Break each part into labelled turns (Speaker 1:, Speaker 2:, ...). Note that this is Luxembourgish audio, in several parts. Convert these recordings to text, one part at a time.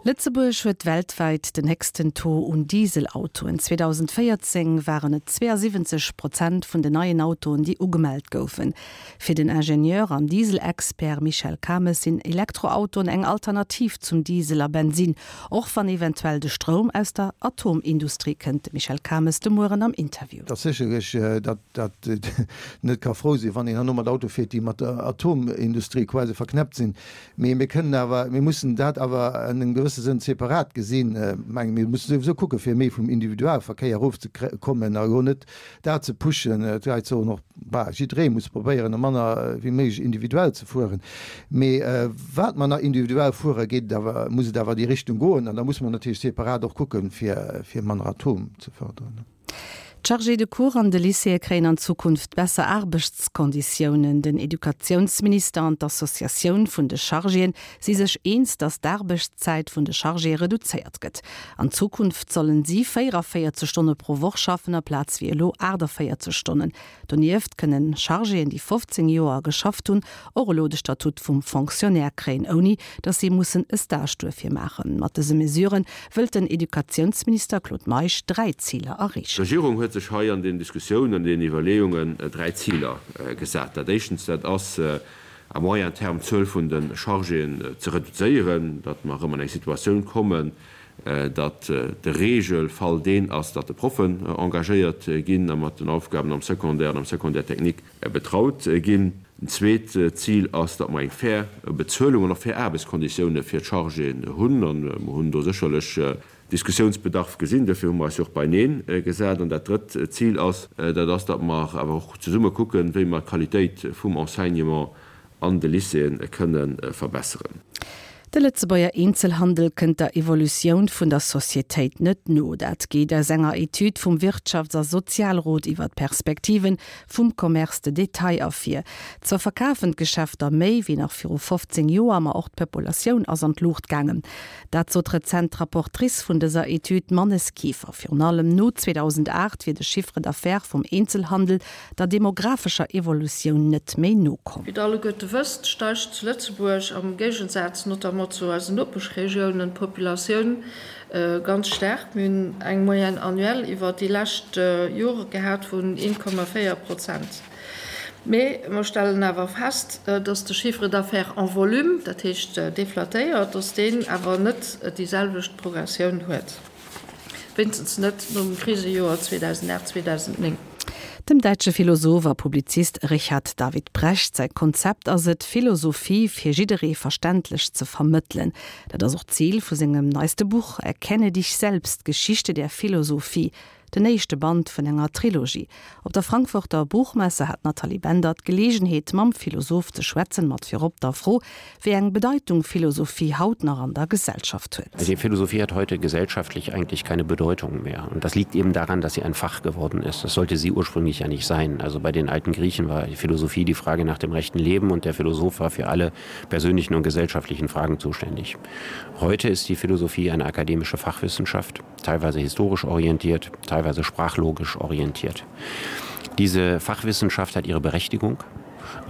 Speaker 1: Lëtzebuerg huet weltwäit den héchsten Taux un Dieselautoen. 2014 waren et 72 Prozent vun den neien Autoen, déi ugemellt goufen. Fir den Ingenieur an Dieselexpert Michel Cames sinn Elektroautoen eng Alternativ zum Diesel a Bensinn, och wann eventuell de Stroum aus der Atomindustrie kënnt. De Michel Cames de Mueren am Interview.
Speaker 2: Et ass sécherlech, datt een net ka frou sinn, wann een herno mat Autoe fiert, déi mat der Atomindustrie quasi verknäppt sinn. Mee mir kënnen awer, mir mussen dat awer an engem gewësse Sënn separat gesinn. Ech mengen, mir mussen souwisou kucke fir méi vum Individualverkéier erofzekommen a elo net dat ze pushen. D'Leit soen och, bah, jidderee muss probéieren, manner wéi méiglech individuell ze fueren. Mee wat mer nach individuell fueren, geet et awer, muss et awer déi Richtung goen. An da musse mer natierlech separat och kucken, fir, fir manner Atom ze förderen.
Speaker 1: D'Chargés de cours an de Lycéeë kréien an Zukunft besser Aarbechtskonditiounen. Den Educatiounsminister an d'Associatioun vun de Chargéen si sech eens, datt d'Aarbechtszäit vun de Chargéë reduzéiert gëtt. An Zukunft sollen si 44 Stonne pro Woch schaffen, aplaz wéi elo 48 Stonnen. Donieft kënnen Chargéen, déi 15 Joer geschafft hunn, och elo de Statut vum Fonctionnaire kréien, ouni datt si mussen e Stage duerfir maachen. Mat dëse Mesurë wëllt den Educatiounsminister Claude Meisch 3 Ziler erreechen.
Speaker 3: D'Regierung huet sech hei an den Diskussiounen, an den Iwwerleeungen 3 Ziler gesat. Dat éischtens, dat ass à moyen terme d'Zuel vun de Chargéen ze reduzéieren, datt mer erëm an eng Situatioun kommen, datt de Regelfall deen ass, datt de Proffen engagéiert ginn a mat den Aufgaben am Secondaire an am Secondaire technique betraut ginn. En zweet Zil ass, datt mer eng fair Bezuelung an och fair Aarbechtskonditioune fir d'Chargéen hunn. A mer hunn do sécherlech Diskussiounsbedarf gesinn. Duerfir hu mer eis jo och beineen gesat. An dat drëtt Zil ass, dat ass, datt mer awer och zesumme kucken, wéi mer d'Qualitéit vum Enseignement an de Lycéeë kënne verbesseren.
Speaker 1: De Lëtzebuerger Eenzelhandel kënnt der Evolutioun vun der Societéit net no. Dat geet aus enger Etüd vum Wirtschafts a Sozialrot iwwer d'Perspektive vum Commerce de détail ervir. Zwar verkafen d'Geschäfter méi wéi nach viru 15 Joer, ma och d'Populatioun ass an d'Luucht gaangen. Dat sot rezent d'Rapportrice vun dëser Etüd, d'Mannes Kieffer. Virun allem no 2008 wier de Chiffre d'affaires vum Eenzelhandel der demographescher Evolutioun net méi nokomm.
Speaker 4: Wéi der alleguerte wësst, steigt zu Lëtzebuerg, am Géigensaz notamment zu eisen Nopeschregiounen, d'Populatioun ganz staark. Mir hunn eng Moyenne annuelle iwwer déi lescht Jore gehat vun 1,4 Prozent. Mee mer stellen awer fest, dass de Chiffre d'affaires en volume, dat heescht deflatéiert, dass deen awer net déi selwecht Progressioun huet. Wéinstens net nom Krisejoer 2008, 2009.
Speaker 1: Dem däitsche Philosoph a Publizist Richard David Precht säi Konzept ass et, Philosophie fir jidderee verständlech ze vermëttelen. Dat ass och d'Zil vu sengem neiste Buch Erkenne dich selbst, Geschichte der Philosophie, den éischte Band vun enger Trilogie. Op der Frankfurter Buchmesse hat d'Nathalie Bender d'Geleegenheet mam Philosoph ze schwätzen, mat virop der Fro, wéi eng Bedeitung Philosophie haut nach an der Gesellschaft huet.
Speaker 5: Die Philosophie hat heute gesellschaftlich eigentlich keine Bedeutung mehr. Und das liegt eben daran, dass sie ein Fach geworden ist. Das sollte sie ursprünglich ja nicht sein. Also bei den alten Griechen war die Philosophie die Frage nach dem rechten Leben und der Philosoph war für alle persönlichen und gesellschaftlichen Fragen zuständig. Heute ist die Philosophie eine akademische Fachwissenschaft, teilweise historisch orientiert, teilweise sprachlogisch orientiert. Diese Fachwissenschaft hat ihre Berechtigung,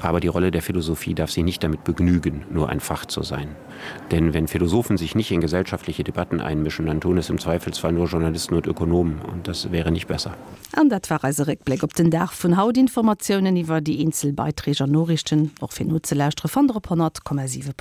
Speaker 5: aber die Rolle der Philosophie darf sich nicht damit begnügen, nur ein Fach zu sein. Denn wenn Philosophen sich nicht in gesellschaftliche Debatten einmischen, dann tun es im Zweifelsfall nur Journalisten und Ökonomen und das wäre nicht besser.
Speaker 1: An dat war eise Réckbléck op den Dag vun haut. Informatiounen iwwer déi eenzel Beiträg an Noriichten, och fir nozelauschteren, fannt der op 100,7.lu.